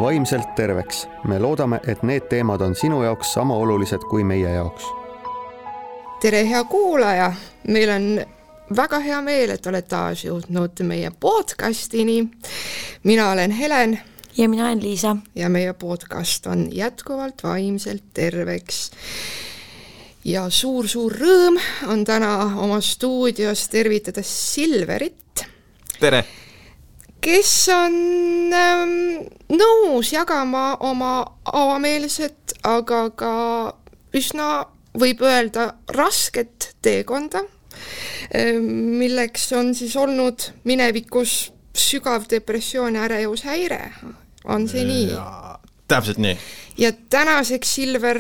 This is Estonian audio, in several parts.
vaimselt terveks. Me loodame, et need teemad on sinu jaoks sama olulised kui meie jaoks. Tere, hea kuulaja! Meil on väga hea meel, et oled taas jõudnud meie podcastini. Mina olen Helen. Ja mina olen Liisa. Ja meie podcast on jätkuvalt vaimselt terveks. Ja suur rõõm on täna oma stuudios tervitada Silverit. Tere! Kes on nõus jagama oma avameelset, aga ka üsna võib öelda rasket teekonda, milleks on siis olnud minevikus sügav depressioon ja ärevushäire. On see nii? Täpselt nii. Ja tänaseks Silver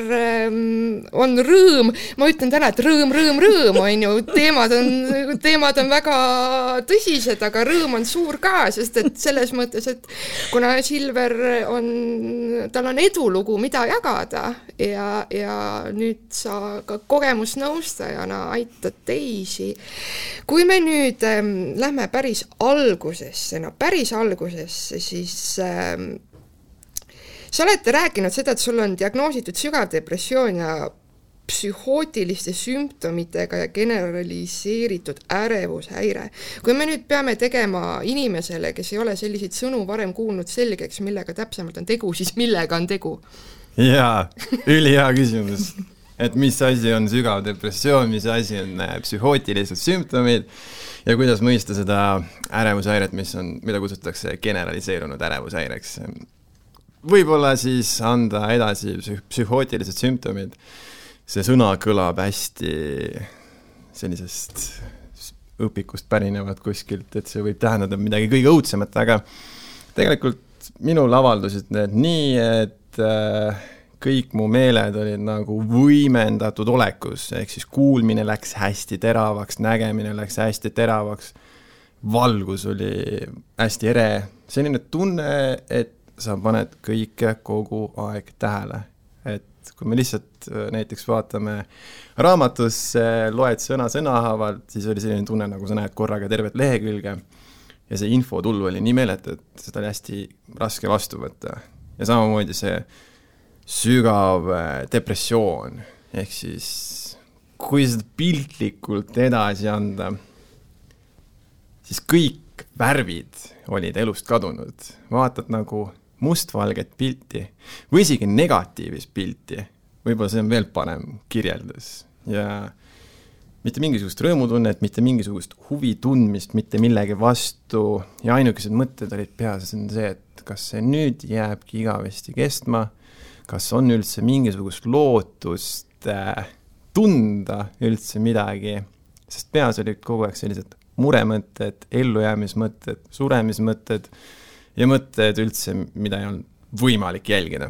on rõõm. Ma ütlen täna, et rõõm on ju. Teemad on väga tõsised, aga rõõm on suur ka, sest et selles mõttes, et kuna Silver tal on edulugu, mida jagada ja nüüd sa ka kogemusnõustajana aitad teisi. Kui me nüüd lähme päris algusesse, siis sa olete rääkinud seda, et sul on diagnoositud sügav depressioon ja psühhootiliste sümptomitega ja generaliseeritud ärevushäire. Kui me nüüd peame tegema inimesele, kes ei ole selliseid sõnu varem kuulnud selgeks, millega täpsemalt on tegu, siis millega on tegu? Jaa, ülihea küsimus. Et mis asi on sügav depressioon, mis asi on psühhootilised sümptomid ja kuidas mõista seda ärevushäiret, mida kutsutakse generaliseerunud ärevushäireks. Võib-olla siis anda edasi psühhootilised sümptomid. See sõna kõlab hästi sellisest õpikust pärinevad kuskilt, et see võib tähendada midagi kõige õudsemat, aga tegelikult minul avaldusid need nii, et kõik mu meeled olid nagu võimendatud olekus, ehk siis kuulmine läks hästi teravaks, nägemine läks hästi teravaks, valgus oli hästi ere, selline tunne, et sa paned kõike kogu aeg tähele. Et kui me lihtsalt näiteks vaatame raamatus, loed sõna-sõnahavalt, siis oli selline tunne, nagu sa näed korraga tervet lehekülge ja see infotulv oli nii meeletu, et seda oli hästi raske vastu võtta. Ja samamoodi see sügav depressioon, ehk siis kui seda piltlikult edasi anda, siis kõik värvid olid elust kadunud. Vaatad nagu mustvalget pilti või isegi negatiivist pilti. Võib-olla see on veel parem kirjeldus. Ja mitte mingisugust rõõmutunnet, mitte mingisugust huvi tundmist, mitte millegi vastu. Ja ainukesed mõtted olid peas see, et kas see nüüd jääbki igavesti kestma, kas on üldse mingisugust lootust tunda üldse midagi. Sest peas olid kogu aeg sellised muremõtted, ellujäämismõtted, suremismõtted ja mõtted üldse, mida ei olnud võimalik jälgida.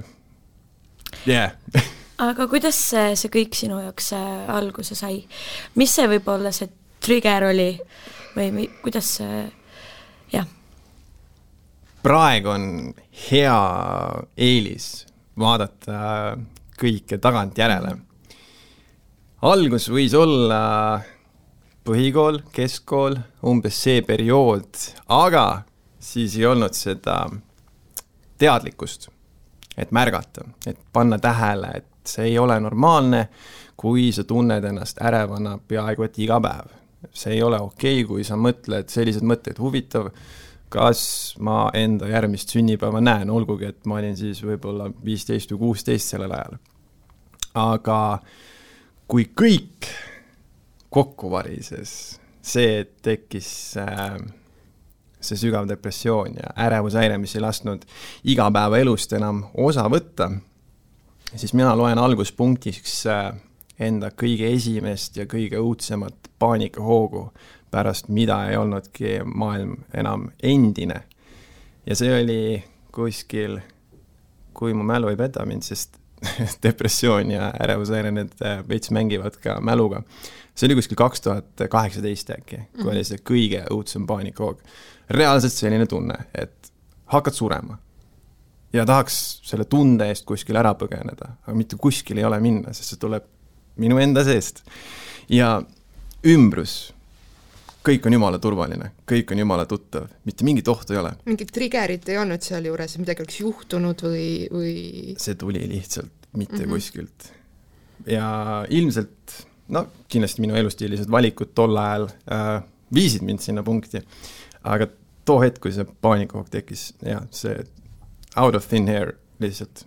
Yeah. Aga kuidas see kõik sinu jaoks alguse sai? Mis see võib-olla see trigger oli? Või kuidas see... jah? Praegu on hea eelis vaadata kõike tagant järele. Algus võis olla põhikool, keskkool, umbes see periood, aga siis ei olnud seda teadlikkust, et märgata, et panna tähele, et see ei ole normaalne, kui sa tunned ennast ärevana peaaegu et iga päev. See ei ole okei, kui sa mõtled sellised mõtted huvitav, kas ma enda järgmist sünnipäeva näen, olgugi, et ma olin siis võib-olla 15 või 16 sellel ajal. Aga kui kõik kokku varises, see tekkis see sügav depressioon ja ärevushäire, mis ei lasknud igapäeva elust enam osa võtta, siis mina loen alguspunktiks enda kõige esimest ja kõige õudsemat paanikahoogu, pärast mida ei olnudki maailm enam endine. Ja see oli kuskil, kui mu mälu ei peta mind, sest depressioon ja ärevushäire need veits mängivad ka mäluga. See oli kuskil 2018 äkki, kui oli see kõige õudsem paanikahoog. Reaalselt selline tunne, et hakkad surema ja tahaks selle tunde eest kuskil ära põgeneda, aga mitte kuskil ei ole minna, sest see tuleb minu enda seest. Ja ümbrus kõik on jumala turvaline, kõik on jumala tuttav, mitte mingit ohtu ei ole. Mingit triggerit ei olnud seal juures, midagi oleks juhtunud või... See tuli lihtsalt mitte kuskilt. Ja ilmselt, kindlasti minu elustiilised valikud tol ajal viisid mind sinna punkti, aga too hetk, kui see paanikahoog tekkis, see out of thin air lihtsalt.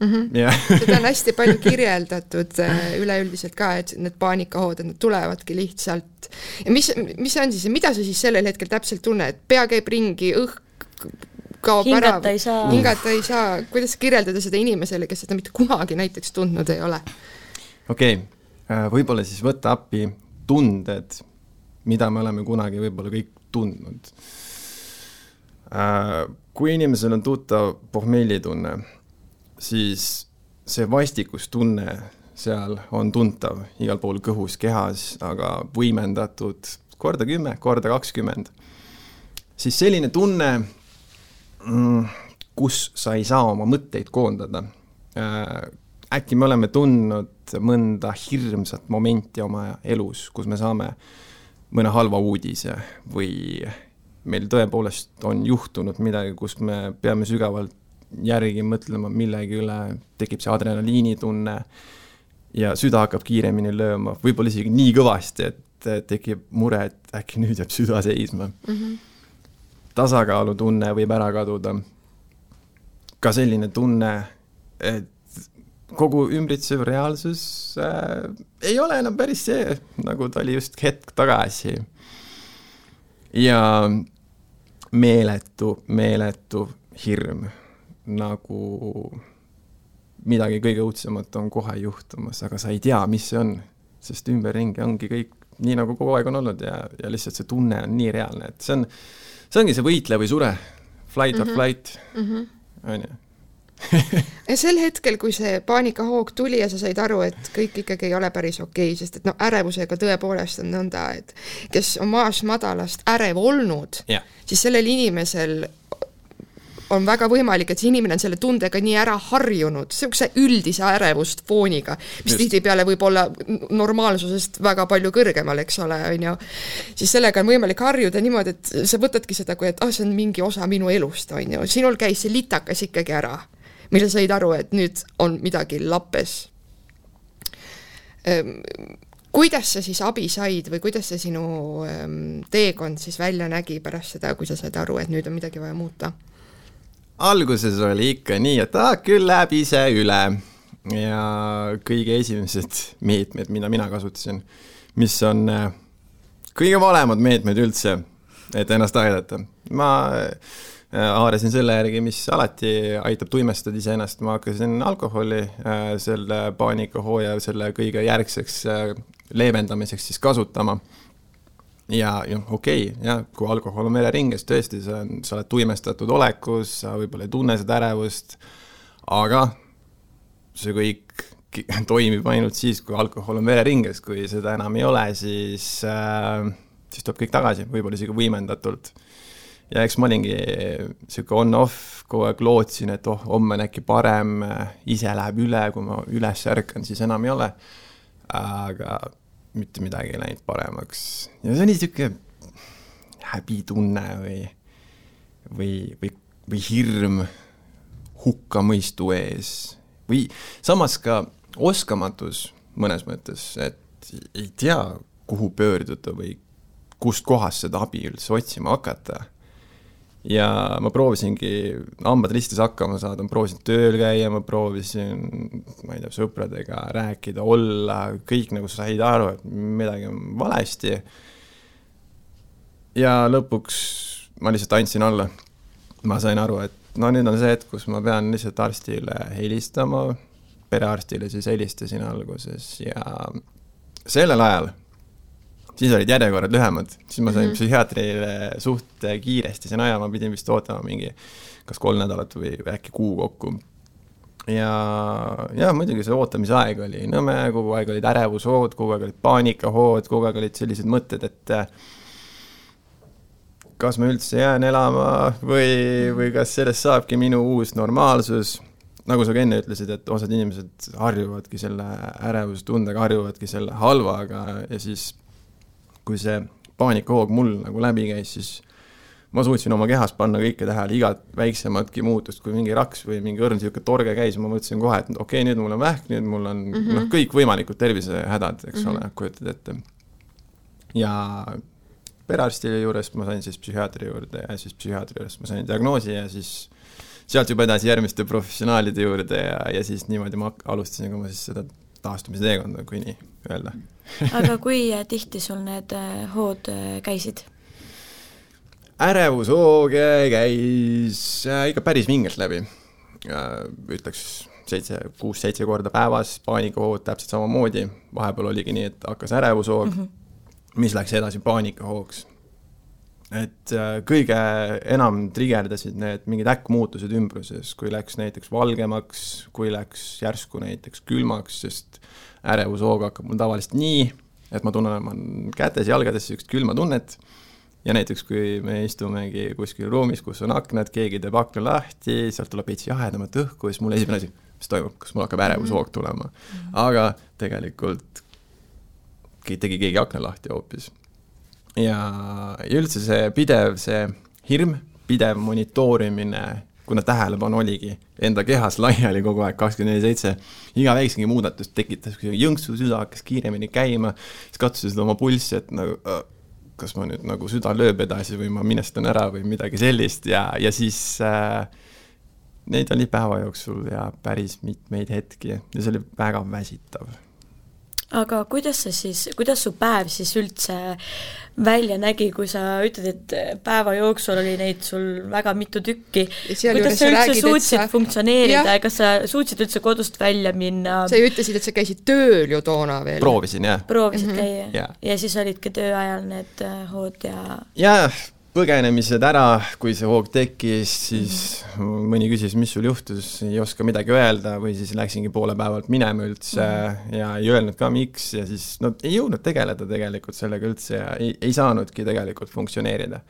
Seda on hästi palju kirjeldatud üleüldiselt ka, et need paanikahood, et need tulevadki lihtsalt. Ja mis on siis, mida sa siis sellel hetkel täpselt tunne, et pea käib ringi, kaob ära, hingata ei saa. Kuidas kirjeldada seda inimesele, kes seda mitte kunagi näiteks tundnud ei ole? Okei, võib-olla siis võtta appi tunded, mida me oleme kunagi võib-olla kõik tundnud. Kui inimesel on tuttav pohmellitunne, siis see vastikustunne seal on tuntav igal pool kõhus, kehas, aga võimendatud korda 10, korda 20. Siis selline tunne, kus sa ei saa oma mõtteid koondada. Äkki me oleme tundnud mõnda hirmsat momenti oma elus, kus me saame mõne halva uudise või meil tõepoolest on juhtunud midagi, kus me peame sügavalt järgi mõtlema millegi üle, tekib see adrenaliinitunne ja süda hakkab kiiremini lööma, võib-olla isegi nii kõvasti, et tekib mure, et äkki nüüd jääb süda seisma. Tasakaalutunne võib ära kaduda. Ka selline tunne, et kogu ümbritsev reaalsus ei ole enam päris see, nagu ta oli just hetk tagasi. Ja meeletu hirm, nagu midagi kõige õudsemat on kohe juhtumas, aga sa ei tea, mis see on, sest ümberringi ongi kõik nii, nagu kogu aeg on olnud ja lihtsalt see tunne on nii reaalne, et see ongi see võitle või sure, flight or flight, on ju. Ja sel hetkel, kui see paanikahoog tuli ja sa said aru, et kõik ikkagi ei ole päris okei, sest et ärevusega tõepoolest on nõnda, et kes on maast madalast ärev olnud, siis sellel inimesel on väga võimalik, et see inimene on selle tundega nii ära harjunud, see üldise ärevust fooniga, mis tihtipeale võib olla normaalsusest väga palju kõrgemal, eks ole, on ju. Siis sellega on võimalik harjuda niimoodi, et sa võtadki seda, kui et see on mingi osa minu elust, on ju. Sinul käis see litakas ikkagi ära, mille said aru, et nüüd on midagi lappes. Kuidas sa siis abi said või kuidas see sinu teekond siis välja nägi pärast seda, kui sa said aru, et nüüd on midagi vaja muuta? Alguses oli ikka nii, et küll läheb ise üle ja kõige esimesed meetmed, mida mina kasutasin, mis on kõige valemad meetmed üldse, et ennast aidata. Ma haarasin selle järgi, mis alati aitab tuimestada ise ennast. Ma hakkasin alkoholi selle paanikahooja selle kõige järgseks leevendamiseks siis kasutama. Ja okei, kui alkohol on vereringes, tõesti, sa oled tuimestatud olekus, sa võib-olla ei tunne seda ärevust, aga see kõik toimib ainult siis, kui alkohol on vereringes, kui seda enam ei ole, siis tuleb kõik tagasi, võib-olla isegi võimendatult. Ja eks ma olingi siuke on-off, kogu aeg lootsin, et homme on äkki parem, ise läheb üle, kui ma üles ärkan, siis enam ei ole, aga mitte midagi ei läinud paremaks. Ja see on niisugune häbitunne või hirm hukkamõistu ees. Või samas ka oskamatus mõnes mõttes, et ei tea, kuhu pöörduda või kust kohast seda abi üldse otsima hakata. Ja ma proovisingi hambad ristis hakkama saada, ma proovisin tööl käia, ma proovisin, ma ei tea, sõpradega rääkida, olla, kõik nagu said aru, et midagi on valesti. Ja lõpuks ma lihtsalt andsin alla. Ma sain aru, et nüüd on see hetk, kus ma pean lihtsalt arstile helistama, perearstile siis helistasin alguses ja sellel ajal siis olid järjekorrad lühemad, siis ma sain psühhiaatrile suht kiiresti sen aja, ma pidin vist ootama mingi kas 3 nädalat või äkki kuu kokku. Ja muidugi see ootamise aeg oli nõme, kogu aeg olid ärevushood, kogu aeg olid paanikahood, kogu aeg olid sellised mõtted, et kas ma üldse jään elama või kas sellest saabki minu uus normaalsus. Nagu sa enne ütlesid, et osad inimesed harjuvadki selle ärevustundega, harjuvadki selle halvaga ja siis kui see paanikahoog mul nagu läbi käis, siis ma suutsin oma kehas panna kõike tähele, igat väiksematki muutust, kui mingi raks või mingi õrn siuke torge käis, ma mõtlesin kohe, et okei, nüüd mul on vähk, nüüd mul on kõik võimalikud tervisehädad, eks ole, kujutad ette. Ja perearsti juures ma sain siis psühhiaatri juurde ja siis psühhiaatri juures ma sain diagnoosi ja siis sealt juba edasi järgmiste professionaalide juurde ja siis niimoodi ma alustasin ka ma siis seda taastumisteekonda, kui nii öelda. Aga kui tihti sul need hood käisid? Ärevushoog käis ikka päris vingelt läbi. Ütleks 6-7 korda päevas, paanikahood täpselt samamoodi. Vahepeal oligi nii, et hakkas ärevushoog, mis läks edasi paanikahoogs. Et kõige enam trigerdasid need mingid äkkmuutused ümbruses, kui läks näiteks valgemaks, kui läks järsku näiteks külmaks, sest ärevushoog hakkab mul tavaliselt nii, et ma tunnen kätes, jalgades sellist külma tunnet. Ja näiteks, kui me istumegi kuskil ruumis, kus on aknad, keegi teeb akna lahti, sealt tuleb veits jahedamat õhku, siis mul esimene asi, mis toimub, kas mul hakkab ärevushoog tulema. Aga tegelikult tegi keegi akna lahti hoopis. Ja üldse see pidev, see hirm, pidev monitoorimine, kuna tähelepanu oligi enda kehas laiali kogu aeg 24/7, iga väiksengi muudatust tekitas, kui jõnksu süda hakkas kiiremini käima, siis katsusid oma pulssi, et nagu kas ma nüüd nagu süda lööb edasi või ma minestan ära või midagi sellist ja siis neid oli päeva jooksul ja päris mitmeid hetki ja see oli väga väsitav. Aga kuidas su päev siis üldse välja nägi, kui sa ütled, et päeva jooksul oli neid sul väga mitu tükki? Kuidas sa üldse suutsid funktsioneerida ja kas sa suutsid üldse kodust välja minna? Sa ütlesid, et sa käisid tööl ju toona veel. Proovisin, jah. Proovisid käia ja siis olidki töö ajal need hood ja... Jah, põgenemised ära, kui see hoog tekkis, siis mõni küsis, mis sul juhtus, ei oska midagi öelda või siis läksingi poole päevalt minema üldse ja ei öelnud ka miks ja siis ei jõudnud tegeleda tegelikult sellega üldse ja ei saanudki tegelikult funktsioneerida.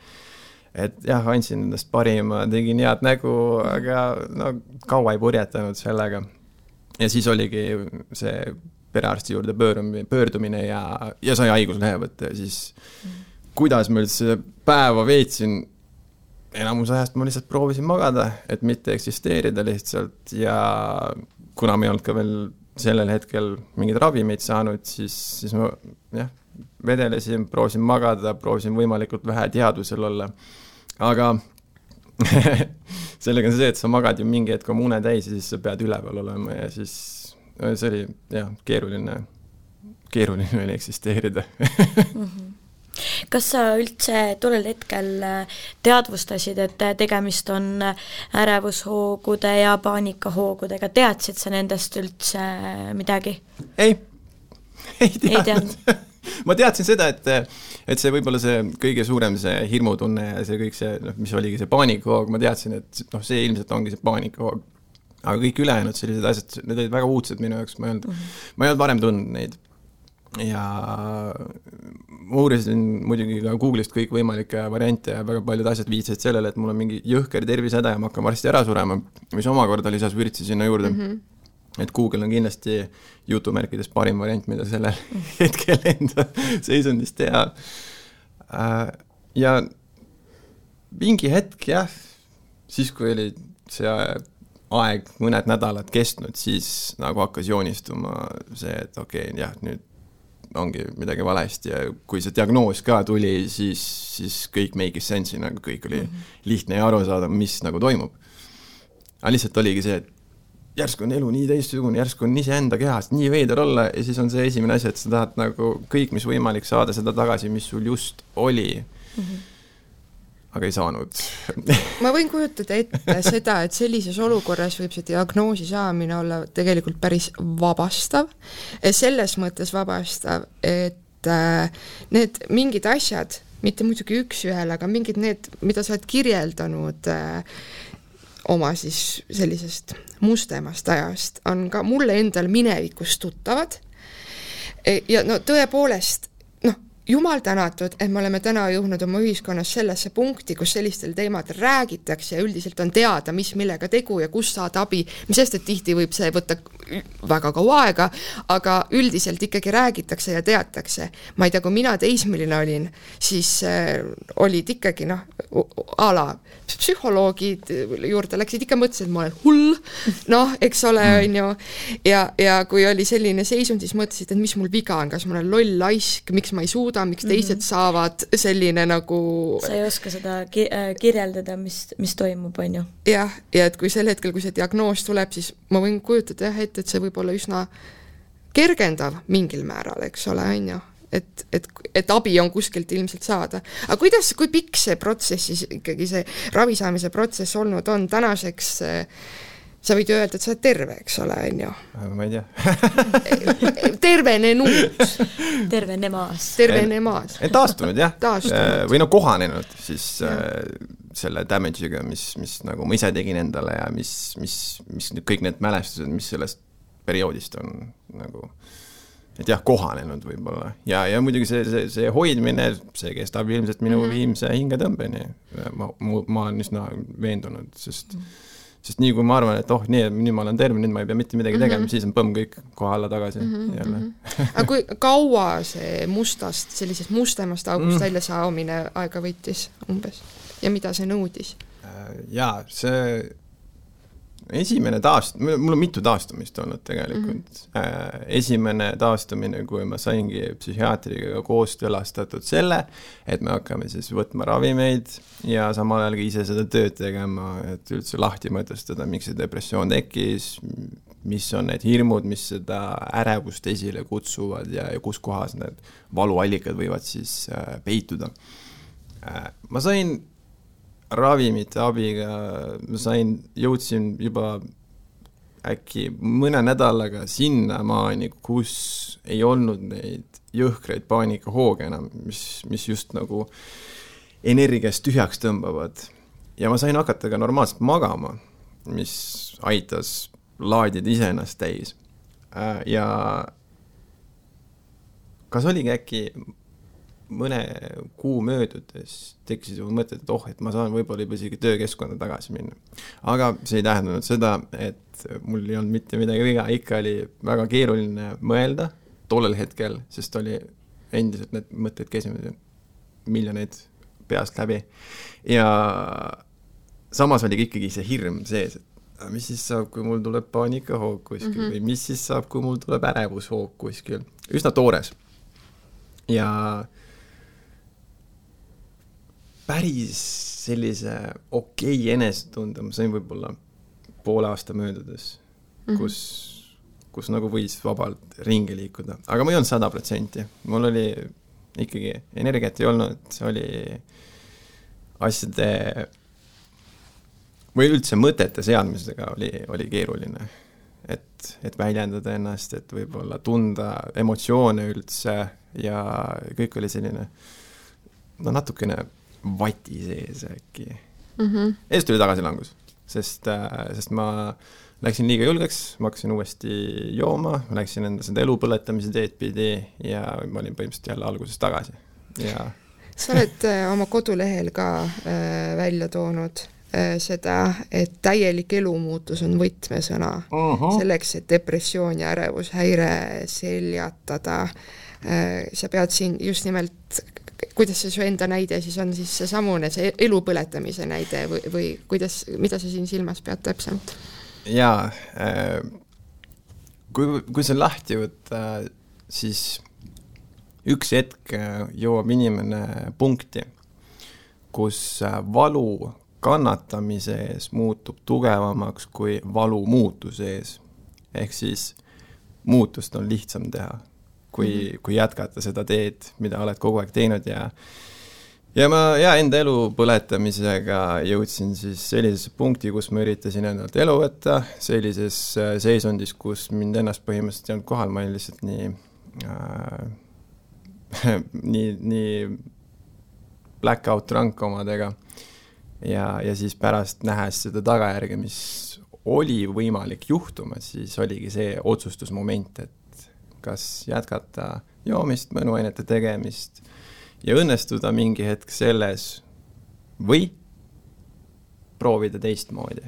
Et jah, andsin endast parima, tegin head nägu, aga kaua ei purjetanud sellega. Ja siis oligi see perearsti juurde pöördumine ja sai haiguslehe võtta ja siis kuidas ma üldse päeva veetsin, enamus ajast ma lihtsalt proovisin magada, et mitte eksisteerida lihtsalt ja kuna ma ei olnud ka veel sellel hetkel mingid ravimeid saanud, siis ma vedelesin, proovisin magada, proovisin võimalikult vähe teadvusel olla. Aga sellega on see, et sa magad ju mingi hetk oma une täis ja siis sa pead üleval olema ja siis see oli keeruline oli eksisteerida. Kas sa üldse tollel hetkel teadvustasid, et tegemist on ärevusHoogude ja paanikahoogudega? Teadsid sa nendest üldse midagi? Ei teadnud. Ma teadsin seda, et see võib-olla see kõige suurem see hirmutunne ja see kõik see, mis oligi see paanikahoog, ma teadsin, et see ilmselt ongi see paanikahoog. Aga kõik ülejäänud sellised asjad, need olid väga uudsed minu jaoks, ma ei olnud varem tundnud neid. Ja ma uurisin muidugi ka Google'ist kõik võimalikke variante ja väga paljud asjad viitsid sellele, et mul on mingi jõhker tervisehäda ja ma hakkan varsti ära surema, mis omakorda lisas vürtsi sinna juurde. Et Google on kindlasti jutumärkides parim variant, mida sellel hetkel enda seisundist teha. Ja mingi hetk, siis kui oli see aeg mõned nädalad kestnud, siis nagu hakkas joonistuma see, et nüüd ongi midagi valesti ja kui see diagnoos ka tuli, siis kõik make sense'i, nagu kõik oli lihtne ja aru saada, mis nagu toimub. Aga lihtsalt oligi see, et järsku on elu nii teistsugune, järsku on ise enda kehast nii veider olla ja siis on see esimene asi, et sa tahad nagu kõik, mis võimalik saada seda tagasi, mis sul just oli. Aga ei saanud. Ma võin kujutada ette seda, et sellises olukorras võib see diagnoosi saamine olla tegelikult päris vabastav. Selles mõttes vabastav, et need mingid asjad, mitte muidugi üks ühel, aga mingid need, mida sa oled kirjeldanud oma siis sellisest mustemast ajast, on ka mulle endal minevikust tuttavad. Ja tõepoolest, jumal tänatud, et me oleme täna jõudnud oma ühiskonnas sellesse punkti, kus sellistel teemadel räägitakse ja üldiselt on teada, mis millega tegu ja kus saada abi, mis sest, et tihti võib see võtta väga kaua aega, aga üldiselt ikkagi räägitakse ja teatakse. Ma ei tea, kui mina teismeline olin, siis olid ikkagi ala psühholoogid juurde läksid ikka mõtlesid, et ma olen hull, eks ole, on ju, ja kui oli selline seisund, siis mõtlesid, et mis mul viga on, kas ma olen loll laisk, miks ma ei suuda, miks teised saavad selline nagu... Sa ei oska seda kirjeldada, mis toimub, on ju? Ja et kui sel hetkel, kui see diagnoos tuleb, siis ma võin kujutada et see võib olla üsna kergendav mingil määral, eks ole, on ju? Et abi on kuskilt ilmselt saada. Aga kui pikk see protsess siis ikkagi see ravisaamise protsess olnud on tänaseks... Sa võid öelda, et sa oled terve, eks ole, on ju? Ma ei tea. Tervenenud. Tervenemaas. Taastunud, jah. Või kohanenud siis selle damage'iga, mis nagu ma ise tegin endale ja mis kõik need mälestused, mis sellest perioodist on nagu, et jah, kohanenud võib-olla. Ja muidugi see hoidmine, see kestab ilmselt minu viimse hingetõmbeni. Ma olen üsna veendunud, sest nii kui ma arvan, et nii ma olen terve, nüüd ma ei pea mitte midagi tegema, siis on põmm kõik koha alla tagasi jälle. Aga kui kaua see sellisest mustemast august välja saamine aega võttis umbes ja mida see nõudis? Jaa, see esimene mul on mitu taastumist olnud tegelikult. Esimene taastumine, kui ma saingi psühhiaatriga koostülastatud selle, et me hakkame siis võtma ravimeid ja samal ajal ka ise seda tööd tegema, et üldse lahti mõtestada, miks see depressioon tekkis, mis on need hirmud, mis seda ärevust esile kutsuvad ja kus kohas need valuallikad võivad siis peituda. Ma sain ravimite abiga, jõudsin juba äkki mõne nädalaga sinna maani, kus ei olnud neid jõhkreid paanikahooge enam, mis just nagu energiast tühjaks tõmbavad. Ja ma sain hakata ka normaalselt magama, mis aitas laadida iseennast täis. Ja kas oligi äkki mõne kuu möödudes tekkisid mu mõtted, et ma saan võib-olla juba isegi töökeskkonda tagasi minna. Aga see ei tähendanud seda, et mul ei olnud mitte midagi viga, ikka oli väga keeruline mõelda tollel hetkel, sest oli endiselt need mõtted käisid miljoneid peast läbi. Ja samas oli ikkagi see hirm sees, et mis siis saab, kui mul tuleb paanikahoog kuskil või mis siis saab, kui mul tuleb ärevushoog kuskil. Üsna toores. Ja päris sellise okei enesetunde, ma sain võib-olla poole aasta möödudes, kus nagu võis vabalt ringi liikuda. Aga ma ei olnud 100%. Mul oli ikkagi energiat ei olnud, see oli asjade või üldse mõtete seadmisega oli keeruline. Et väljendada ennast, et võib-olla tunda emotsioone üldse ja kõik oli selline natukene vati sees äkki. Eest oli tagasilangus, sest ma läksin liiga julgeks, ma hakkasin uuesti jooma, ma läksin enda seda elu põletamise teed pidi ja ma olin põhimõtteliselt jälle alguses tagasi. Ja... Sa oled oma kodulehel ka välja toonud seda, et täielik elumuutus on võtmesõna selleks, et depressioon ja ärevushäire seljatada. Sa pead siin just nimelt, kuidas see su enda näide siis on siis see samune, see elu põletamise näide või mida sa siin silmas pead täpselt? Jaa, kui see lahti võtta, siis üks hetk jõuab inimene punkti, kus valu kannatamise ees muutub tugevamaks kui valu muutuse ees. Ehk siis muutust on lihtsam teha, kui jätkata seda teed, mida oled kogu aeg teinud ja ma enda elu põletamisega jõudsin siis sellisesse punkti, kus ma üritasin endalt elu võtta, sellises seisundis, kus mind ennast põhimõtteliselt ei olnud kohal, ma olin lihtsalt nii blackout drunk omadega ja siis pärast nähes seda tagajärge, mis oli võimalik juhtuma, siis oligi see otsustusmoment, et kas jätkata joomist, mõnuainete tegemist ja õnnestuda mingi hetk selles või proovida teistmoodi.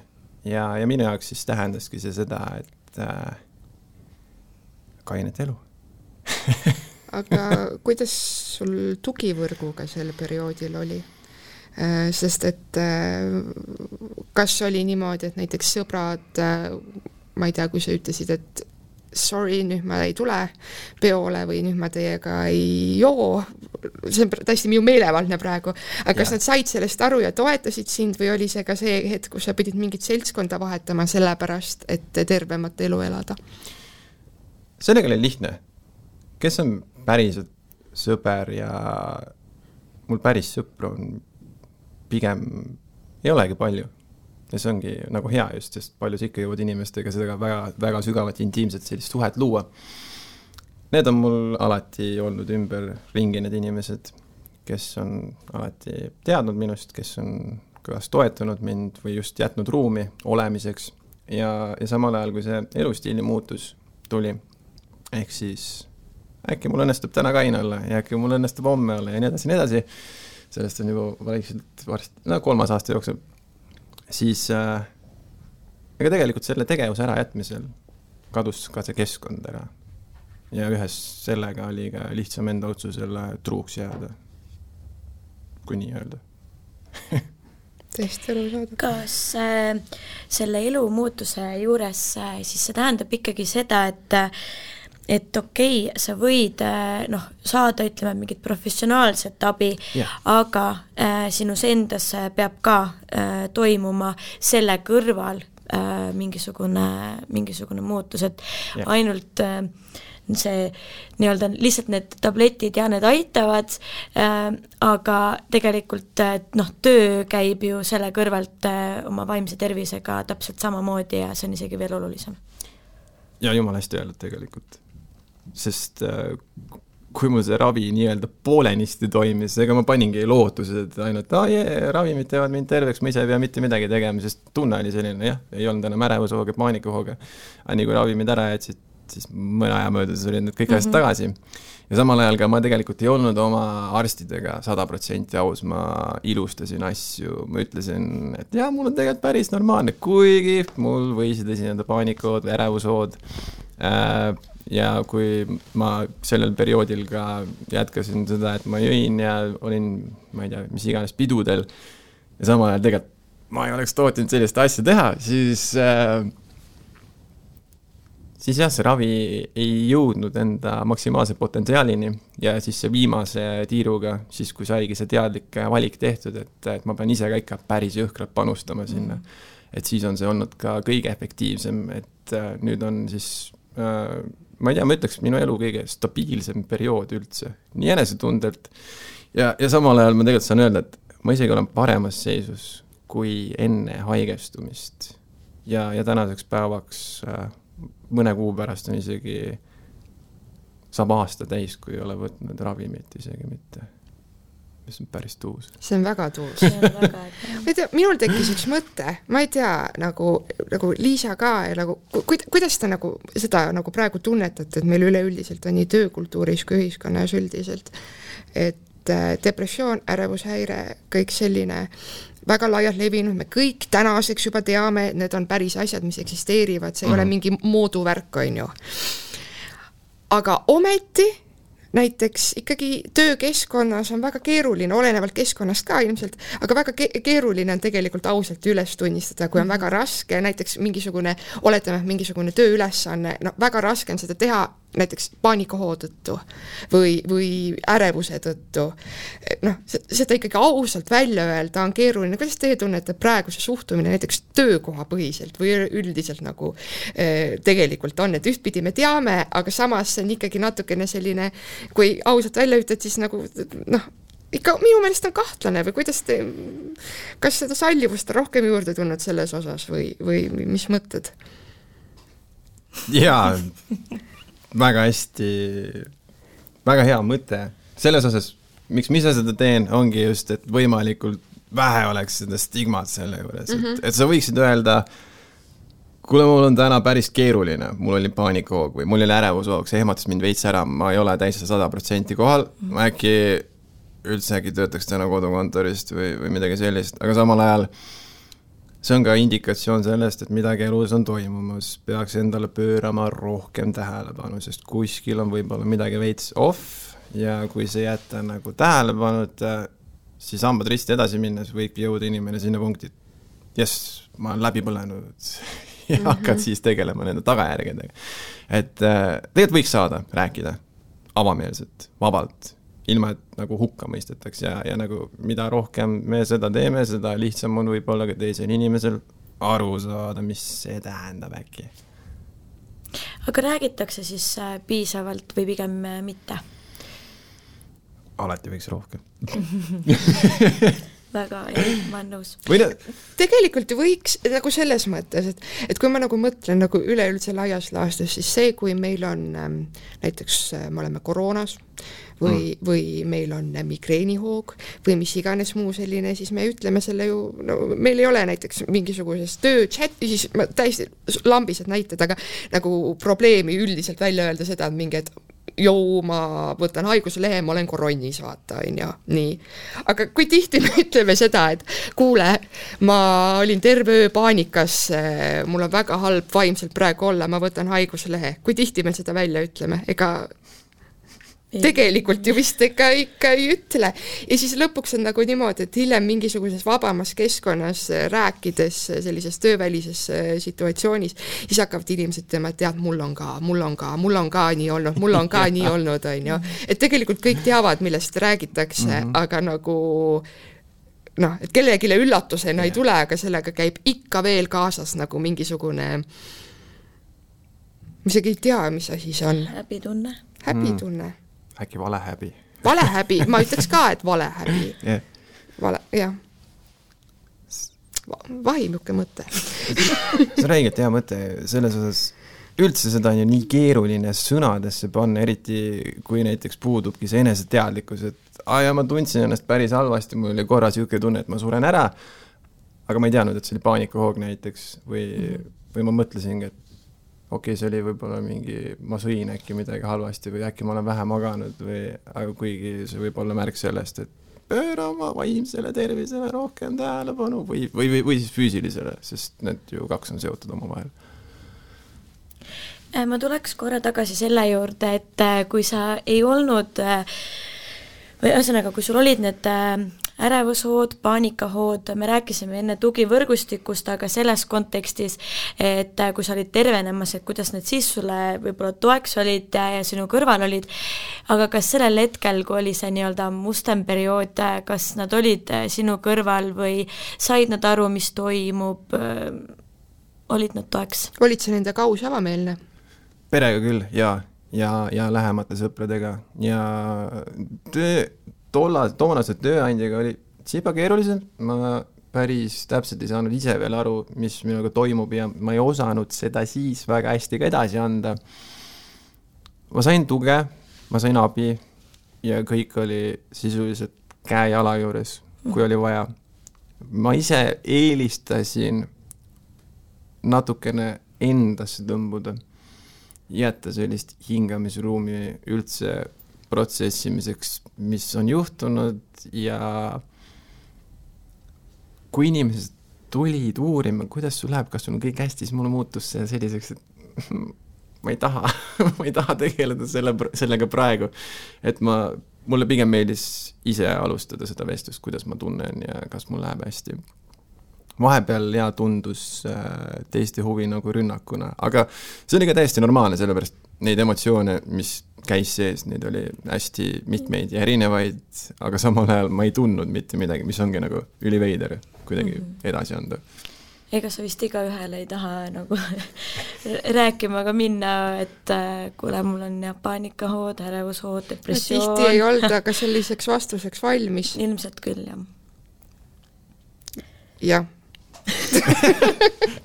Ja minu jaoks siis tähendaski see seda, et kainet elu. Aga kuidas sul tugivõrguga sel perioodil oli? Sest et kas oli niimoodi, et näiteks sõbrad, ma ei tea, kui sa ütlesid, et sorry, nüüd ma ei tule peole või nüüd ma teiega ei joo, see on täiesti minu meelevaldne praegu, aga kas nad said sellest aru ja toetasid sind või oli see ka see hetk, kus sa pidid mingit seltskonda vahetama sellepärast, et tervemat elu elada? Sellega oli lihtne. Kes on päriselt sõber ja mul päris sõpru on pigem ei olegi palju. Ja see ongi nagu hea just, sest palju ikka jõuad inimestega seda väga, väga sügavat intiimset sellist suhet luua. Need on mul alati olnud ümber ringi need inimesed, kes on alati teadnud minust, kes on kas toetanud mind või just jätnud ruumi olemiseks. Ja samal ajal, kui see elustiili muutus tuli, ehk siis äkki mul õnnestub täna kaine olla ja äkki mul õnnestub homme olla ja nii edasi. Sellest on juba vaikselt varsti, 3. aasta jooksul. Siis ega tegelikult selle tegevuse ära jätmisel kadus ka see keskkond ära. Ja ühes sellega oli ka lihtsam enda otsusele truuks jääda, kui nii öelda. Tõesti aru saada. Kas selle elu muutuse juures siis see tähendab ikkagi seda, et okei, sa võid saada, ütleme, mingit professionaalset abi, aga sinus endas peab ka toimuma selle kõrval mingisugune muutus, et ainult see nii-öelda lihtsalt need tabletid ja need aitavad, aga tegelikult töö käib ju selle kõrvalt oma vaimse tervisega täpselt samamoodi ja see on isegi veel olulisem. Ja jumal hästi öelnud tegelikult. Sest kui mul see ravi nii-öelda poolenisti toimis, ega ma paningi lootused, et ainult ravimid teevad mind terveks, ma ise ei pea mitte midagi tegema, sest tunne oli selline, ei olnud enam ärevusehooga, paanikahooga. Aga nii kui ravimid ära jätsid, siis mõne aja möödas olid need kõik asjad tagasi. Ja samal ajal ka ma tegelikult ei olnud oma arstidega 100% aus, ma ilustasin asju, ma ütlesin, et mul on tegelikult päris normaalne, kuigi mul võisid esineda paanikood või ärevushood. Ja kui ma sellel perioodil ka jätkasin seda, et ma jõin ja olin, ma ei tea, mis iganes pidudel ja samal ajal tegelikult ma ei oleks tootinud sellist asja teha, siis see ravi ei jõudnud enda maksimaalse potentsiaalini ja siis see viimase tiiruga, siis kui saigi see teadlik valik tehtud, et ma pean ise ka ikka päris jõhkralt panustama sinna. Et siis on see olnud ka kõige efektiivsem, et nüüd on siis ma ei tea, ma ütleks minu elu kõige stabiilsem periood üldse, nii enesetundelt ja samal ajal ma tegelikult saan öelda, et ma isegi olen paremas seisus kui enne haigestumist ja tänaseks päevaks mõne kuu pärast on isegi saab aasta täis, kui ei ole võtnud ravimit isegi mitte. See on päris tuus. See on väga tuus. Minul tekkis üks mõte, ma ei tea, nagu Liisa ka, ja kuidas ta seda praegu tunnetate, et meil üleüldiselt on nii töökultuuris kui ühiskonnas üldiselt, et depressioon, ärevushäire, kõik selline väga laialt levinud, me kõik tänaseks juba teame, et need on päris asjad, mis eksisteerivad, see ei ole mingi mooduvärk, on ju. Aga ometi näiteks ikkagi töökeskkonnas on väga keeruline, olenevalt keskkonnast ka ilmselt, aga väga keeruline on tegelikult ausalt üles tunnistada, kui on väga raske, näiteks mingisugune tööülesanne, väga raske on seda teha näiteks paanikahoo tõttu või ärevuse tõttu. Seda ikkagi ausalt välja öelda on keeruline. Kuidas teie tunnete praeguse suhtumine näiteks töökoha põhiselt või üldiselt tegelikult on, et ühtpidi me teame, aga samas see on ikkagi natukene selline, kui ausalt välja ütled, siis ikka minu meelest on kahtlane või kas seda sallivust on rohkem juurde tulnud selles osas või mis mõtted? Jaa, väga hästi, väga hea mõte. Selles osas, miks ma seda teen, ongi just, et võimalikult vähe oleks seda stigmat selle juures. Et sa võiksid öelda, kuule, mul on täna päris keeruline, mul oli paanikahoog või mul oli ärevushoog, see ehmatas mind veits ära, ma ei ole täis 100% kohal, ma äkki üldse äkki töötaks täna kodukontorist või midagi sellist, aga samal ajal see on ka indikatsioon sellest, et midagi elus on toimumas, peaks endale pöörama rohkem tähelepanu, sest kuskil on võib-olla midagi veits off ja kui see jätta nagu tähelepanuta, siis hambad risti edasi minnes võibki jõuda inimene sinna punkti, ma olen läbi põlenud ja hakkad siis tegelema nende tagajärgedega. Et tegelikult võiks saada rääkida avameelselt, vabalt, ilma et nagu hukka mõistetaks ja nagu mida rohkem me seda teeme, seda lihtsam on võib-olla ka teisel inimesel aru saada, mis see tähendab äkki. Aga räägitakse siis piisavalt või pigem mitte? Alati võiks rohkem. Väga, ma olen nõus. Tegelikult võiks nagu selles mõttes, et kui ma nagu mõtlen nagu üleüldse laias laastus, siis see, kui meil on näiteks me oleme koroonas või meil on migreenihoog või mis iganes muu selline, siis me ütleme selle ju, no meil ei ole näiteks mingisugusest tööchati, siis ma täiesti lambised näited, aga nagu probleemi üldiselt välja öelda seda, et mingi, et ma võtan haiguslehe, ma olen koronnis, vaata, nii. Aga kui tihti me ütleme seda, et kuule, ma olin terve öö paanikas, mul on väga halb vaimselt praegu olla, ma võtan haiguslehe. Kui tihti me seda välja ütleme? Ega tegelikult ju vist ikka ei ütle. Ja siis lõpuks on nagu niimoodi, et hiljem mingisuguses vabamas keskkonnas rääkides sellises töövälises situatsioonis, siis hakkavad inimesed ütlema, et tead, mul on ka nii olnud, mul on ka nii olnud, on ju. Et tegelikult kõik teavad, millest räägitakse, aga nagu et kellegile üllatusena ei tule, aga sellega käib ikka veel kaasas nagu mingisugune, mis ei tea, mis asi see on. Häbitunne. Äkki valehäbi. Valehäbi, ma ütleks ka, et valehäbi. Jah. Vahimuke mõte. See on räigelt hea mõte, selles osas üldse seda on ju nii keeruline sõnadesse panna, eriti kui näiteks puudubki see eneseteadlikkus, et ma tundsin ennast päris halvasti, mul oli korra siuke tunne, et ma suren ära, aga ma ei teadnud, et see oli paanikahoog näiteks või ma mõtlesingi, et okei, see oli võib-olla ma sõin äkki midagi halvasti või äkki ma olen vähe maganud aga kuigi see võib olla märk sellest, et pööra oma vaimsele tervisele rohkem tähelepanu või siis füüsilisele, sest need ju kaks on seotud omavahel. Ma tuleks korra tagasi selle juurde, et kui sa ei olnud või ühesõnaga, kui sul olid need ärevushood, paanikahood, me rääkisime enne tugivõrgustikust, aga selles kontekstis, et kui sa olid tervenemas, et kuidas need siis sulle võib-olla toeks olid ja sinu kõrval olid, aga kas sellel hetkel, kui oli see nii-öelda mustem periood, kas nad olid sinu kõrval või said nad aru, mis toimub, olid nad toeks? Olid see nende kaus avameelne? Perega küll, ja lähemate sõpradega ja toonase tööandjaga oli tsipa keeruliselt, ma päris täpselt ei saanud ise veel aru, mis minuga toimub ja ma ei osanud seda siis väga hästi ka edasi anda. Ma sain tuge, ma sain abi ja kõik oli sisuliselt käe-jala juures, kui oli vaja. Ma ise eelistasin natukene endasse tõmbuda, jätta sellist hingamisruumi üldse protsessimiseks, mis on juhtunud ja kui inimesed tulid uurima, kuidas sul läheb, kas sul on kõik hästi, siis mulle muutus see selliseks, et ma ei taha tegeleda sellega praegu, et mulle pigem meeldis ise alustada seda vestlust, kuidas ma tunnen ja kas mul läheb hästi. Vahepeal tundus teiste huvi nagu rünnakuna, aga see oli ka täiesti normaalne, sellepärast neid emotsioone, mis käis sees, neid oli hästi mitmeid ja erinevaid, aga samal ajal ma ei tundnud mitte midagi, mis ongi nagu üliveider kuidagi edasi anda. Ega sa vist iga ühele ei taha nagu rääkima ka minna, et kuule, mul on paanikahood, ärevushood, depressioon. Tihti ei olnud, aga selliseks vastuseks valmis. Ilmselt küll, jah. Jah.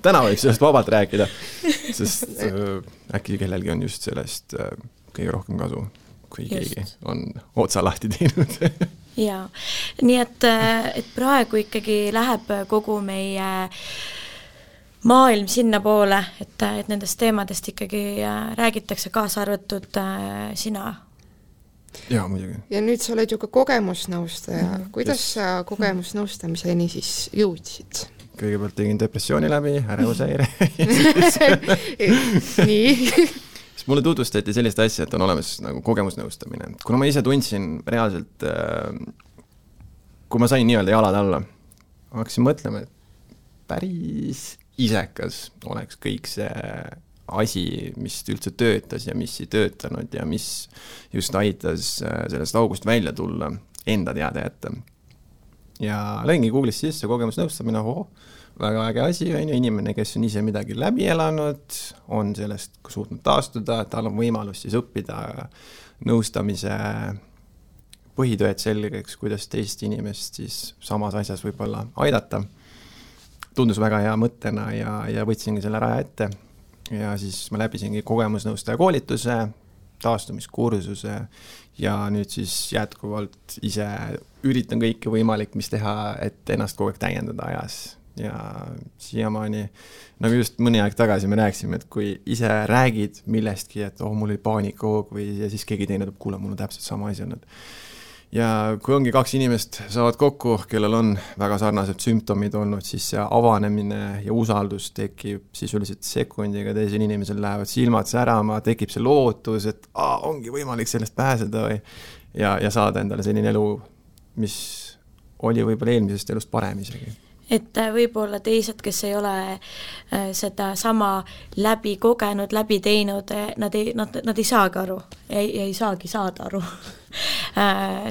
Täna võib sellest vabalt rääkida, sest äkki kellelgi on just sellest kõige rohkem kasu, kui keegi on otsa lahti teinud. Jaa, nii et praegu ikkagi läheb kogu meie maailm sinna poole, et nendest teemadest ikkagi räägitakse kaasa arvatud sina Jaa, muidugi. Ja nüüd sa oled ju ka kogemusnõustaja. Kuidas sa kogemusnõustamiseni siis jõudsid? Kõigepealt tegin depressiooni läbi, ärevusehäire. Nii. Siis mulle tutvustati sellist asja, et on olemas nagu kogemusnõustamine. Kuna ma ise tundsin reaalselt, kui ma sain nii-öelda jalad alla, ma hakkasin mõtlema, et päris isekas oleks kõik see asi, mis üldse töötas ja mis ei töötanud ja mis just aitas sellest august välja tulla, enda teada jätta. Ja lõingi Google'is sisse kogemusnõustamine, väga äge asi, inimene, kes on ise midagi läbi elanud, on sellest suutnud taastuda, tal on võimalus siis õppida nõustamise põhitööd selgeks, kuidas teist inimest siis samas asjas võib-olla aidata. Tundus väga hea mõttena ja võtsingi selle raja ette. Ja siis ma läbisingi kogemusnõustaja koolituse, taastumiskursuse ja nüüd siis jätkuvalt ise üritan kõike võimalik, mis teha, et ennast kogu aeg täiendada ajas. Ja siiamaani, nagu just mõni aeg tagasi me rääksime, et kui ise räägid millestki, et mul oli paanikahoog või ja siis keegi teine tuleb, kuule, mul on täpselt sama asi olnud. Ja kui ongi 2 inimest saavad kokku, kellel on väga sarnased sümptomid olnud, siis see avanemine ja usaldus tekib sisuliselt sekundiga, teisel inimesel lähevad silmad särama, tekib see lootus, et ongi võimalik sellest pääseda ja saada endale selline elu, mis oli võib-olla eelmisest elust parem isegi. Et võib-olla teised, kes ei ole seda sama läbi kogenud, läbi teinud, nad ei saagi aru, ei saagi saada aru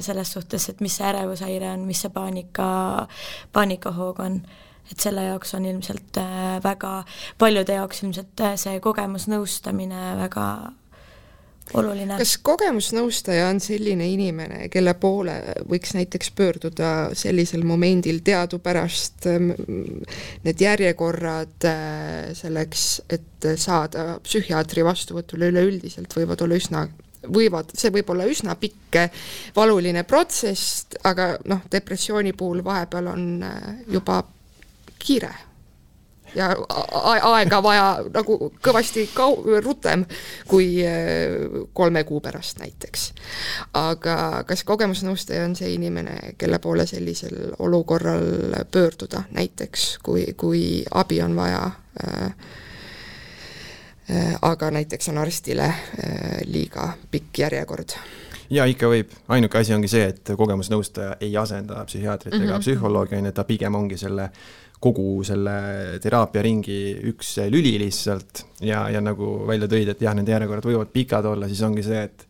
selles suhtes, et mis see ärevushaire on, mis see paanikahoog on. Et selle jaoks on ilmselt väga, paljude jaoks ilmselt see kogemusnõustamine väga oluline. Kas kogemusnõustaja on selline inimene, kelle poole võiks näiteks pöörduda sellisel momendil teadupärast need järjekorrad selleks, et saada psühhiaatri vastuvõtule üleüldiselt see võib olla üsna pikk valuline protsess, aga depressiooni puhul vahepeal on juba kiire ja aega vaja nagu kõvasti rutem kui 3 kuu pärast näiteks. Aga kas kogemusnõustaja on see inimene, kelle poole sellisel olukorral pöörduda näiteks, kui abi on vaja, aga näiteks on arstile liiga pikk järjekord? Ja ikka võib. Ainuke asi ongi see, et kogemusnõustaja ei asenda psühhiaatrit ega psühholoogi, ta pigem ongi kogu selle teraapiaringi üks lüli lihtsalt ja nagu välja tõid, et jah, nende järjekorrad võivad pikad olla, siis ongi see, et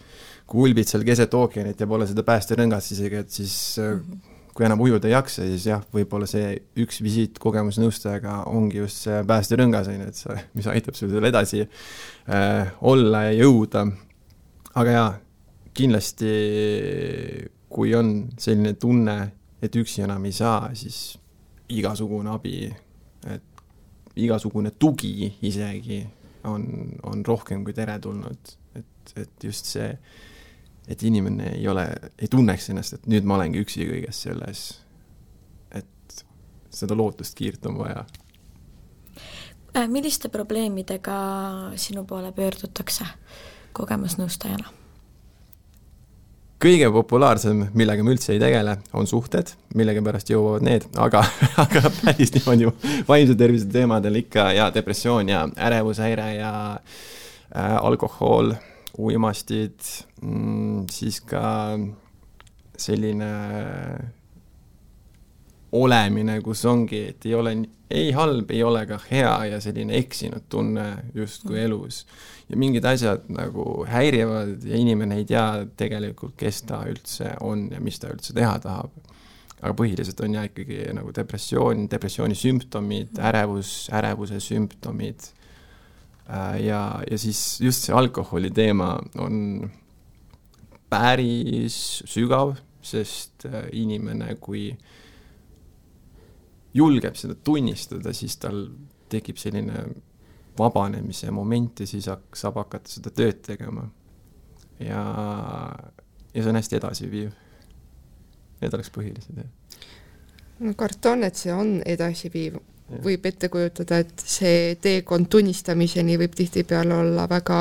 kui ulbid seal keset ookeanit ja pole seda päästerõngast isegi, et siis kui enam ujuda ei jaksa, siis jah, võib-olla see üks visiit kogemusnõustajaga ongi just see päästerõngas, mis aitab sul edasi olla ja jõuda. Aga jah, kindlasti kui on selline tunne, et üksi enam ei saa, siis igasugune abi, et igasugune tugi isegi on rohkem kui teretulnud, et just see, et inimene ei tunneks ennast, et nüüd ma olengi üksi kõiges selles, et seda lootust kiirt on vaja. Milliste probleemidega sinu poole pöördutakse kogemusnõustajana? Kõige populaarsem, millega me üldse ei tegele, on suhted, millega pärast jõuavad need, aga päris niimoodi vaimse tervise teemadel ikka ja depressioon ja ärevushäire ja alkohol, uimastid, siis ka selline olemine, kus ongi, et ei ole ei halb, ei ole ka hea ja selline eksinud tunne justkui elus. Ja mingid asjad nagu häirivad ja inimene ei tea tegelikult, kes ta üldse on ja mis ta üldse teha tahab. Aga põhiliselt on ja ikkagi nagu depressiooni sümptomid, ärevuse sümptomid ja siis just see alkoholi teema on päris sügav, sest inimene, kui julgeb seda tunnistada, siis tal tekib selline vabanemise moment ja siis saab hakata seda tööd tegema. Ja see on hästi edasiviiv. Need oleks põhilised. No karton, et see on edasiviiv. Võib ette kujutada, et see teekond tunnistamiseni võib tihtipeale olla väga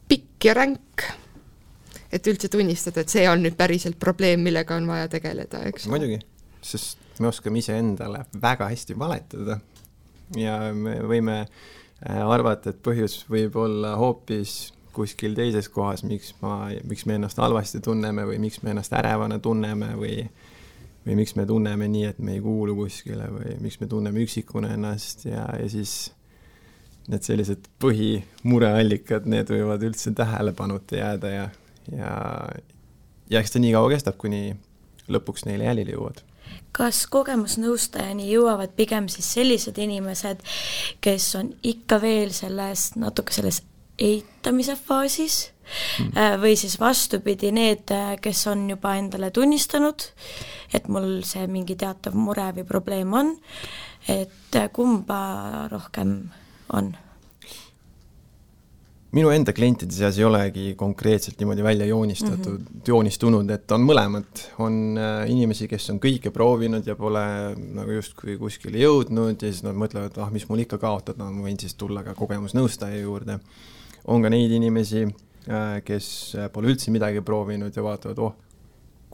pikk ja ränk. et üldse tunnistada, et see on nüüd päriselt probleem, millega on vaja tegeleda, eks? Muidugi, sest me oskame ise endale väga hästi valetada ja me võime arvata, et põhjus võib olla hoopis kuskil teises kohas, miks me ennast halvasti tunneme või miks me ennast ärevana tunneme või miks me tunneme nii, et me ei kuulu kuskile või miks me tunneme üksikuna ennast ja siis need sellised põhimureallikad, need võivad üldse tähelepanuta jääda ja eks ta nii kaua kestab, kuni lõpuks neile jälile jõuavad. Kas kogemusnõustajani jõuavad pigem siis sellised inimesed, kes on ikka veel natuke selles eitamise faasis või siis vastupidi need, kes on juba endale tunnistanud, et mul see mingi teatav mure või probleem on, et kumba rohkem on? Minu enda klientide seas ei olegi konkreetselt niimoodi välja joonistunud, et on mõlemad. On inimesi, kes on kõike proovinud ja pole nagu justkui kuskile jõudnud ja siis nad mõtlevad, mis mul ikka kaotada, ma võin siis tulla ka kogemusnõustaja juurde. On ka neid inimesi, kes pole üldse midagi proovinud ja vaatavad,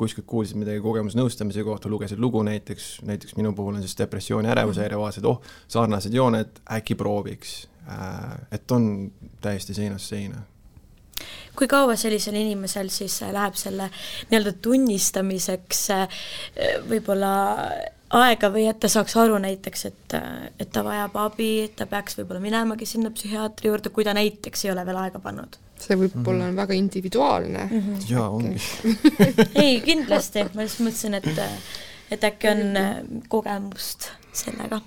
kuskilt kuulsid midagi kogemusnõustamise kohta, lugesid lugu näiteks minu puhul on siis depressiooni ärevushäire, vaatasid, sarnased jooned, äkki prooviks. Et on täiesti seinast seina. Kui kaua sellisel inimesel siis läheb selle nii-öelda tunnistamiseks võib-olla aega või et ta saaks aru näiteks, et ta vajab abi, et ta peaks võib-olla minemagi sinna psühhiaatri juurde, kui ta näiteks ei ole veel aega pannud? See võib-olla on väga individuaalne. Jaa, ongi. Ei, kindlasti. Ma just mõtlesin, et äkki on kogemust sellega.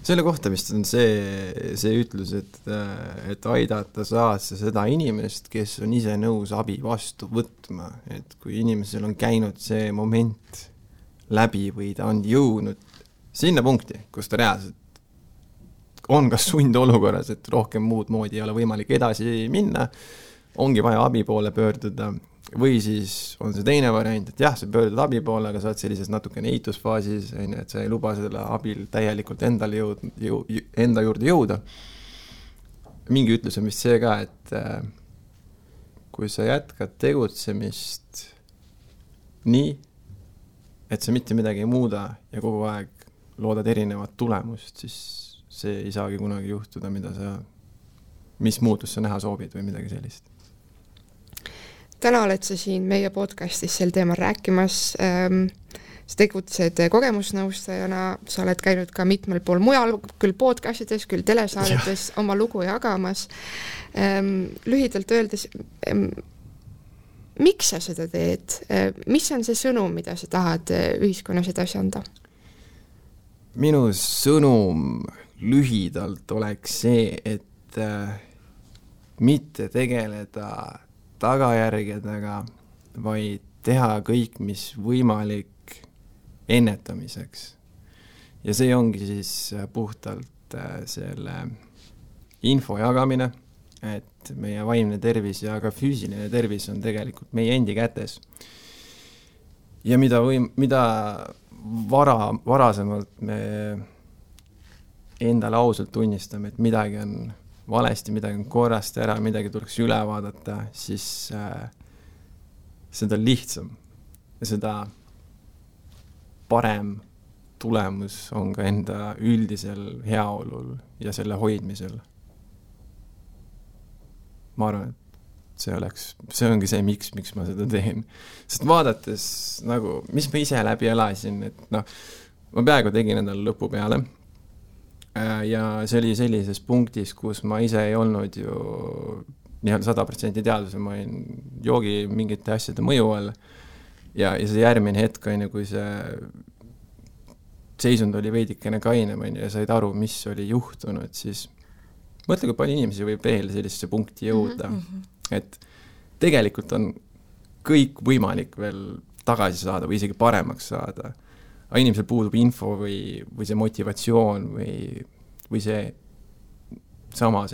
Selle kohta vist on see ütlus, et aidata saad seda inimest, kes on ise nõus abi vastu võtma. Et kui inimesel on käinud see moment läbi või ta on jõudnud sinna punkti, kus ta reaalselt on kas sundolukorras, et rohkem muud moodi ei ole võimalik edasi minna, ongi vaja abi poole pöörduda või siis on see teine variant, et jah, sa pöördud abi poole, aga sa oled sellises natukene eitusfaasis, et sa ei luba selle abil täielikult enda juurde jõuda. Mingi ütlus on vist see ka, et kui sa jätkad tegutsemist nii, et sa mitte midagi ei muuda ja kogu aeg loodad erinevat tulemust, siis see ei saagi kunagi juhtuda, mis muutus sa näha soovid või midagi sellist. Täna oled sa siin meie podcastis sel teemal rääkimas. Sa tegutsed kogemusnõustajana, sa oled käinud ka mitmel pool mujal, küll podcastides, küll telesaadetes oma lugu jagamas. Lühidalt öeldes, miks sa seda teed? Mis on see sõnum, mida sa tahad ühiskonnas edasi anda? Minu sõnum lühidalt oleks see, et mitte tegeleda tagajärgedega, vaid teha kõik, mis võimalik ennetamiseks. Ja see ongi siis puhtalt selle info jagamine, et meie vaimne tervis ja ka füüsiline tervis on tegelikult meie endi kätes. Ja mida varasemalt me endale ausalt tunnistame, et midagi on valesti, midagi on korrast ära, midagi tuleks üle vaadata, siis seda lihtsam ja seda parem tulemus on ka enda üldisel heaolul ja selle hoidmisel. Ma arvan, et see ongi see, miks ma seda teen. Sest vaadates, mis ma ise läbi elasin, et ma peaaegu tegin endale lõpu peale. Ja see oli sellises punktis, kus ma ise ei olnud ju 100% teaduse, ma olin joogi mingite asjade mõju all ja see järgmine hetk, kui see seisund oli veidikene kainem ja said aru, mis oli juhtunud, siis mõtle, kui palju inimesi võib veel sellisesse punkti jõuda, et tegelikult on kõik võimalik veel tagasi saada või isegi paremaks saada. Aga inimesel puudub info või see motivatsioon või see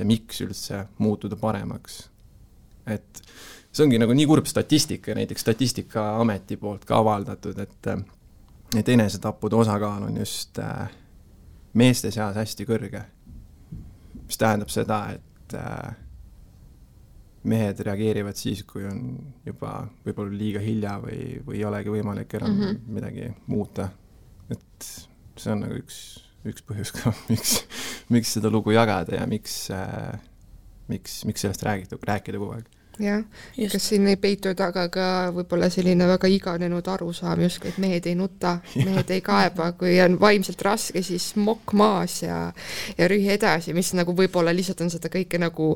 miks üldse muutuda paremaks. Et see ongi nii kurb statistika, näiteks Statistikaameti poolt ka avaldatud, et enesetappude osakaal on just meeste seas hästi kõrge. Mis tähendab seda, et mehed reageerivad siis, kui on juba võib-olla liiga hilja või ei olegi võimalik enam midagi muuta. Et see on nagu üks põhjus ka, miks seda lugu jagada ja miks sellest rääkida kogu aeg. Jah, kas siin ei peitu taga ka võib-olla selline väga iganenud arusaam justkui, et mehed ei nuta, mehed ei kaeba, kui on vaimselt raske, siis mokk maas ja rühi edasi, mis nagu võib-olla lihtsalt on seda kõike nagu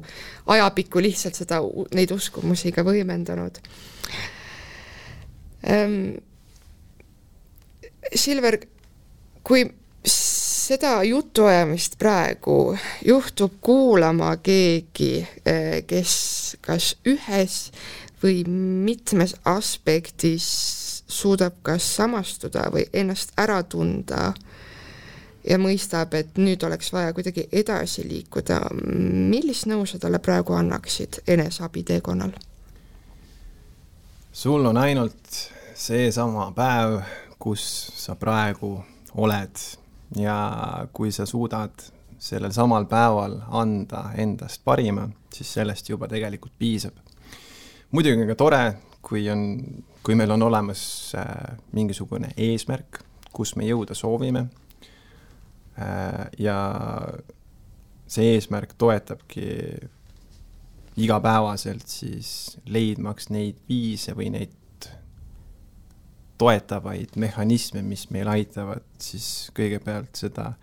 ajapikku lihtsalt neid uskumusi ka võimendanud. Silver, kui seda jutuajamist praegu juhtub kuulama keegi, kes kas ühes või mitmes aspektis suudab kas samastuda või ennast ära tunda ja mõistab, et nüüd oleks vaja kuidagi edasi liikuda. Millist nõu sa talle praegu annaksid eneseabi teekonnal? Sul on ainult seesama päev, kus sa praegu oled ja kui sa suudad sellel samal päeval anda endast parima, siis sellest juba tegelikult piisab. Muidugi on ka tore, kui meil on olemas mingisugune eesmärk, kus me jõuda soovime ja see eesmärk toetabki igapäevaselt siis leidmaks neid viise või neid toetavaid mehhanisme, mis meil aitavad siis kõigepealt seda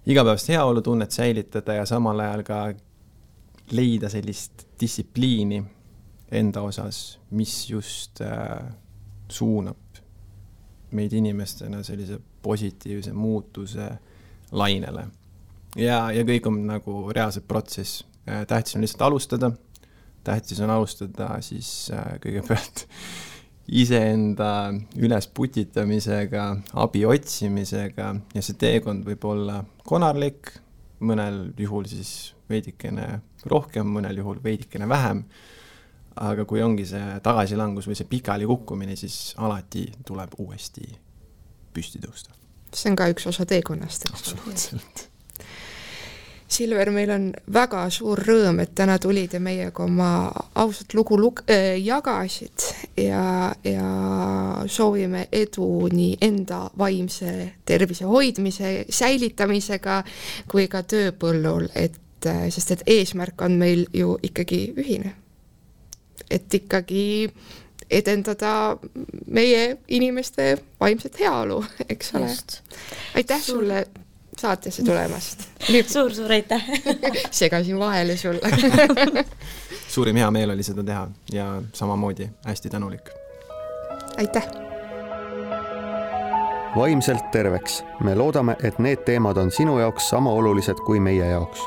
igapäevast heaolutunnet säilitada ja samal ajal ka leida sellist distsipliini enda osas, mis just suunab meid inimestena sellise positiivse muutuse lainele. Ja kõik on nagu reaalselt protsess. Tähtis on lihtsalt alustada. Tähtis on alustada siis kõigepealt iseenda üles putitamisega, abi otsimisega ja see teekond võib olla konarlik, mõnel juhul siis veidikene rohkem, mõnel juhul veidikene vähem, aga kui ongi see tagasilangus või see pikali kukkumine, siis alati tuleb uuesti püsti tõusta. See on ka üks osa teekonnast. Absoluutselt. Silver, meil on väga suur rõõm, et täna tulid ja meiega oma ausat lugu jagasid ja soovime edu nii enda vaimse tervise hoidmise, säilitamisega kui ka tööpõllul, sest et eesmärk on meil ju ikkagi ühine. Et ikkagi edendada meie inimeste vaimset heaolu, eks ole. Aitäh sulle saatesse tulemast. Suur aitäh. Segasin vahele sulle. Suurim hea meel oli seda teha ja samamoodi hästi tänulik. Aitäh. Vaimselt terveks. Me loodame, et need teemad on sinu jaoks sama olulised kui meie jaoks.